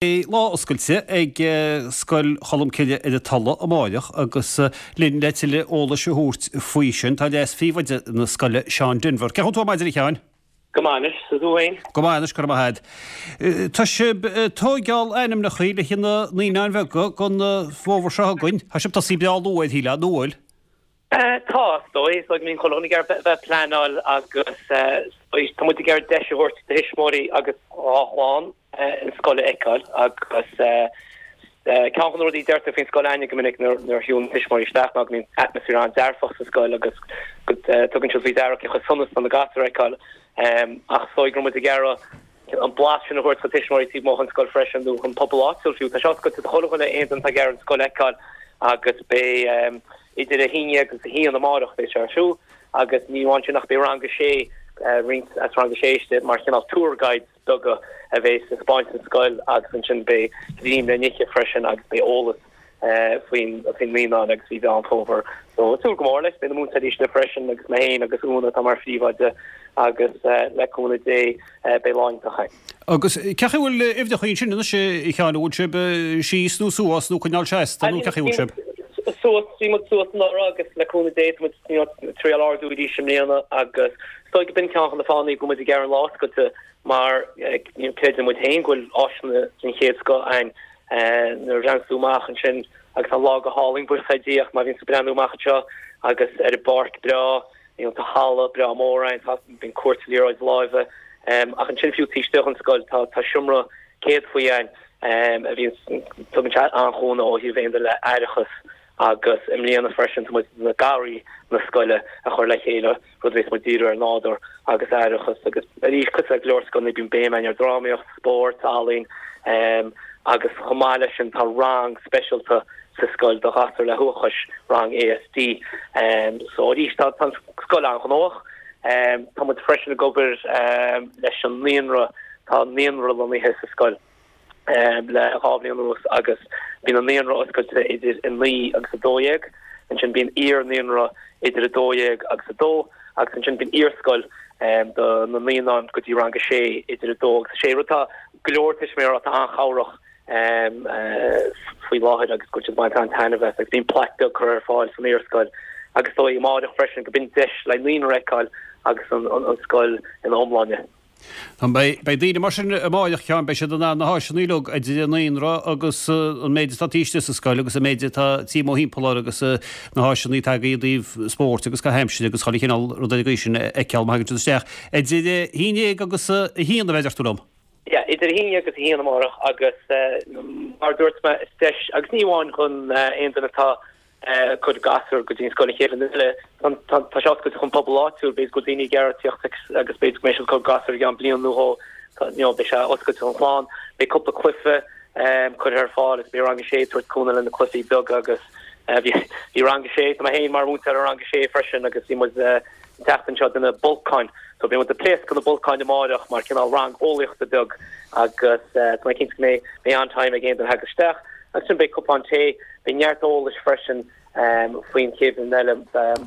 Beidh lá oscailte ag Scoil Cholmcille ar an Tulaigh amáireach agus linn le tuilleadh eolais a thabhairt faoi sin tá leas-phríomhoide na scoile, Seán Denvir. Cén chaoi a bhfuil tú ar maidin a Sheáin? Go maith anois, is tú féin? Go maith anois, go raibh maith agat. Tá sibh ag tóigeáil ainmneacha le haghaidh na naíonáin bheaga don bhfómhar seo chugainn. Tá sibh tosaithe breá luath air, shílfeá, nó an bhfuil? Tá, is dóigh. Is dóigh go mbíonn chuile dhuine ag iarraidh bheith ag pleanáil agus tá muid ag iarraidh deis a thabhairt do thuismitheoirí agus dá chlann an scoil a fheiceáil agus ceann de na rudaí a deirtear faoin scoil againne go minic nuair a shiúlann tuismitheoirí isteach ná go mbíonn atmaisféar an-dearfach sa scoil agus go dtugann siad faoi deara cé chomh sona is atá na gasúir a fheiceáil ach is dóigh go raibh muid ag iarraidh an blas sin a thabhairt do tuismitheoirí taobh amuigh den scoil freisin nó don pobal áitiúil fiú. Tá sé oscailte do chuile dhuine, aon duine atá ag iarraidh an scoil a fheiceáil agus beidh idir 11 agus 1 amárach beidh sé ar siúl agus ní amháin sin ach beidh rang a sé, roinnt as rang a sé istigh mar chineál tour guides beaga a bheas ag spáint an scoil agus ansin beidh greim le n-ithe freisin agus beidh eolas faoin naíonáin agus faoi Mheán Fómhair. So ag súil go mór leis. Beidh na múinteoirí istigh freisin agus mé féin agus Úna atá mar phríomhoide agus le cúnamh Dé beidh lá iontach againn. Agus cén chaoi a bhfuil uimhreacha ansin anois a Sheáin, an bhfuil sibh síos nó suas nó coinneáil seasta nó cén chaoi a bhfuil sibh? Suas, bhí muid suas anuraidh agus le cúnamh Dé tá muid ag triail ardú arís i mbliana agus is dóigh go b'in ceann de na fáthanna go bhfuil muid ag iarraidh an lá oscailte mar creideann muid féin go bhfuil áiseanna den chéad scoth againn Nuair a bhreathnaíonn tú amach ansin agus tá an lá go hálainn, buíochas le Dia, ach má bhíonn tú ag breathnú amach anseo agus ar an bpáirc breá, you know, tá halla breá mór ann, tá, bíonn cúirt liathróid láimhe, ach ansin fiú taobh istigh den scoil tá, tá seomra céadfaí ann a bhíonn, tugann sé an-chúnamh ó thaobh aon duine le haireachas agus i mbliana freisin tá muid na garraí na scoile a chur le chéile. rud a bheas muid díriú ar nádúr agus aireachas agus arís cosúil le go leor scoileanna bíonn béim againn ar drámaíocht, spórt, ealaín agus chomh maith leis sin tá rang speisialta sa scoil do ghasúir le huathachas, rang ASD. So arís tá an scoil an-ghnóthach. Tá muid freisin ag obair leis an naíonra, tá naíonra lonnaithe sa scoil. le 2 bhliain anuas agus bíonn an naíonra oscailte idir 9 agus 12, ansin bíonn iar-naíonra idir 12 agus 2 agus ansin bíonn iarscoil do na naíonáin go dtí rang 6 idir 2 agus 6, rud atá go leor tuismitheoirí atá an-chabhrach faoi láthair agus go bhfuil siad ag baint an-taitneamh as agus bíonn plaic beag curtha ar fáil san iarscoil agus is dóigh amáireach freisin go b'in deis le naíonra a fheiceáil agus an scoil ina iomláine. Beidh daoine mar sin amáireach, a Sheáin, beidh siad in ann na háiseanna uilig, idir an naíonra agus an méid atá taobh istigh sa scoil agus an méid atá taobh amuigh thimpeall air agus na háiseanna atá agaibh i dtaobh spóirt agus caitheamh aimsire agus chuile chineál rud ar an gcaoi sin a fheiceáil má thagann siad isteach. Idir 11 agus 1 a bheidh, deir tú liom? Yeah, idir 11 agus 1 amárach agus mar a dúirt mé, is deis, agus ní amháin chun aon duine atá ag cur gasúr go dtí an scoil an chéad bhliain eile. Tá sé oscailte chun pobal áitiúil, b'fhéidir go bhfuil daoine ag iarraidh tíocht agus b'fhéidir go mbeidh siad ag cur gasúr i gceann bliain nó dhó, you know, beidh sé oscailte chun chlann. Beidh cúpla cluiche curtha ar fáil agus beidh rang a sé ag tabhairt cúnamh le na cluichí beaga agus bhí bhí rang a sé, tá mé féin mar mhúinteoir i rang a sé freisin agus bhí muid an tseachtain seo ag déanamh bolcáin. So beidh muid ag pléascadh na bolcáin amáireach mar cineál rang eolaíochta beag agus tá mé cinnte go mbeidh mbeidh an-time ag aon duine a thagas isteach. Agus ansin beidh cupán tae, beidh neart eolais freisin faoin chéad bhliain eile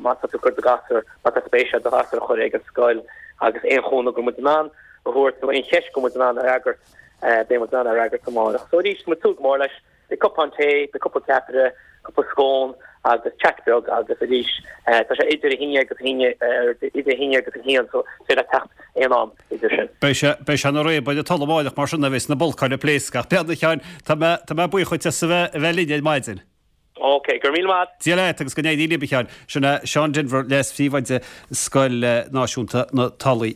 má tá tú ag cur do ghasúr, má tá spéis agat do ghasúr a chur ag an scoil agus aon chúnamh go bhfuil muid in ann a thabhairt nó aon cheist go bhfuil muid in ann a fhreagairt, beidh muid in ann a fhreagairt amárach. So arís, tá muid ag súil go mór leis. Beidh cupán tae, beidh cúpla ceapaire, cúpla scón agus chat beag agus arís tá sé idir 11 agus idir 11 agus 1 so is féidir leat teacht aon am idir sin. Beidh sé, beidh sé ina réabadh ar an Tulaigh amáireach mar sin a bheas na bolcáin ag pléascadh. Ach b'fhéidir a Sheáin, tá mé, tá mé buíoch dhuit as a bheith, a bheith linn ar maidin. Ok, go raibh míle maith. Dia leat agus go n-éirí libh a Sheáin. Sin é Seán Denvir, Leas-Phríomhoide Scoil Náisiúnta na Tulaí.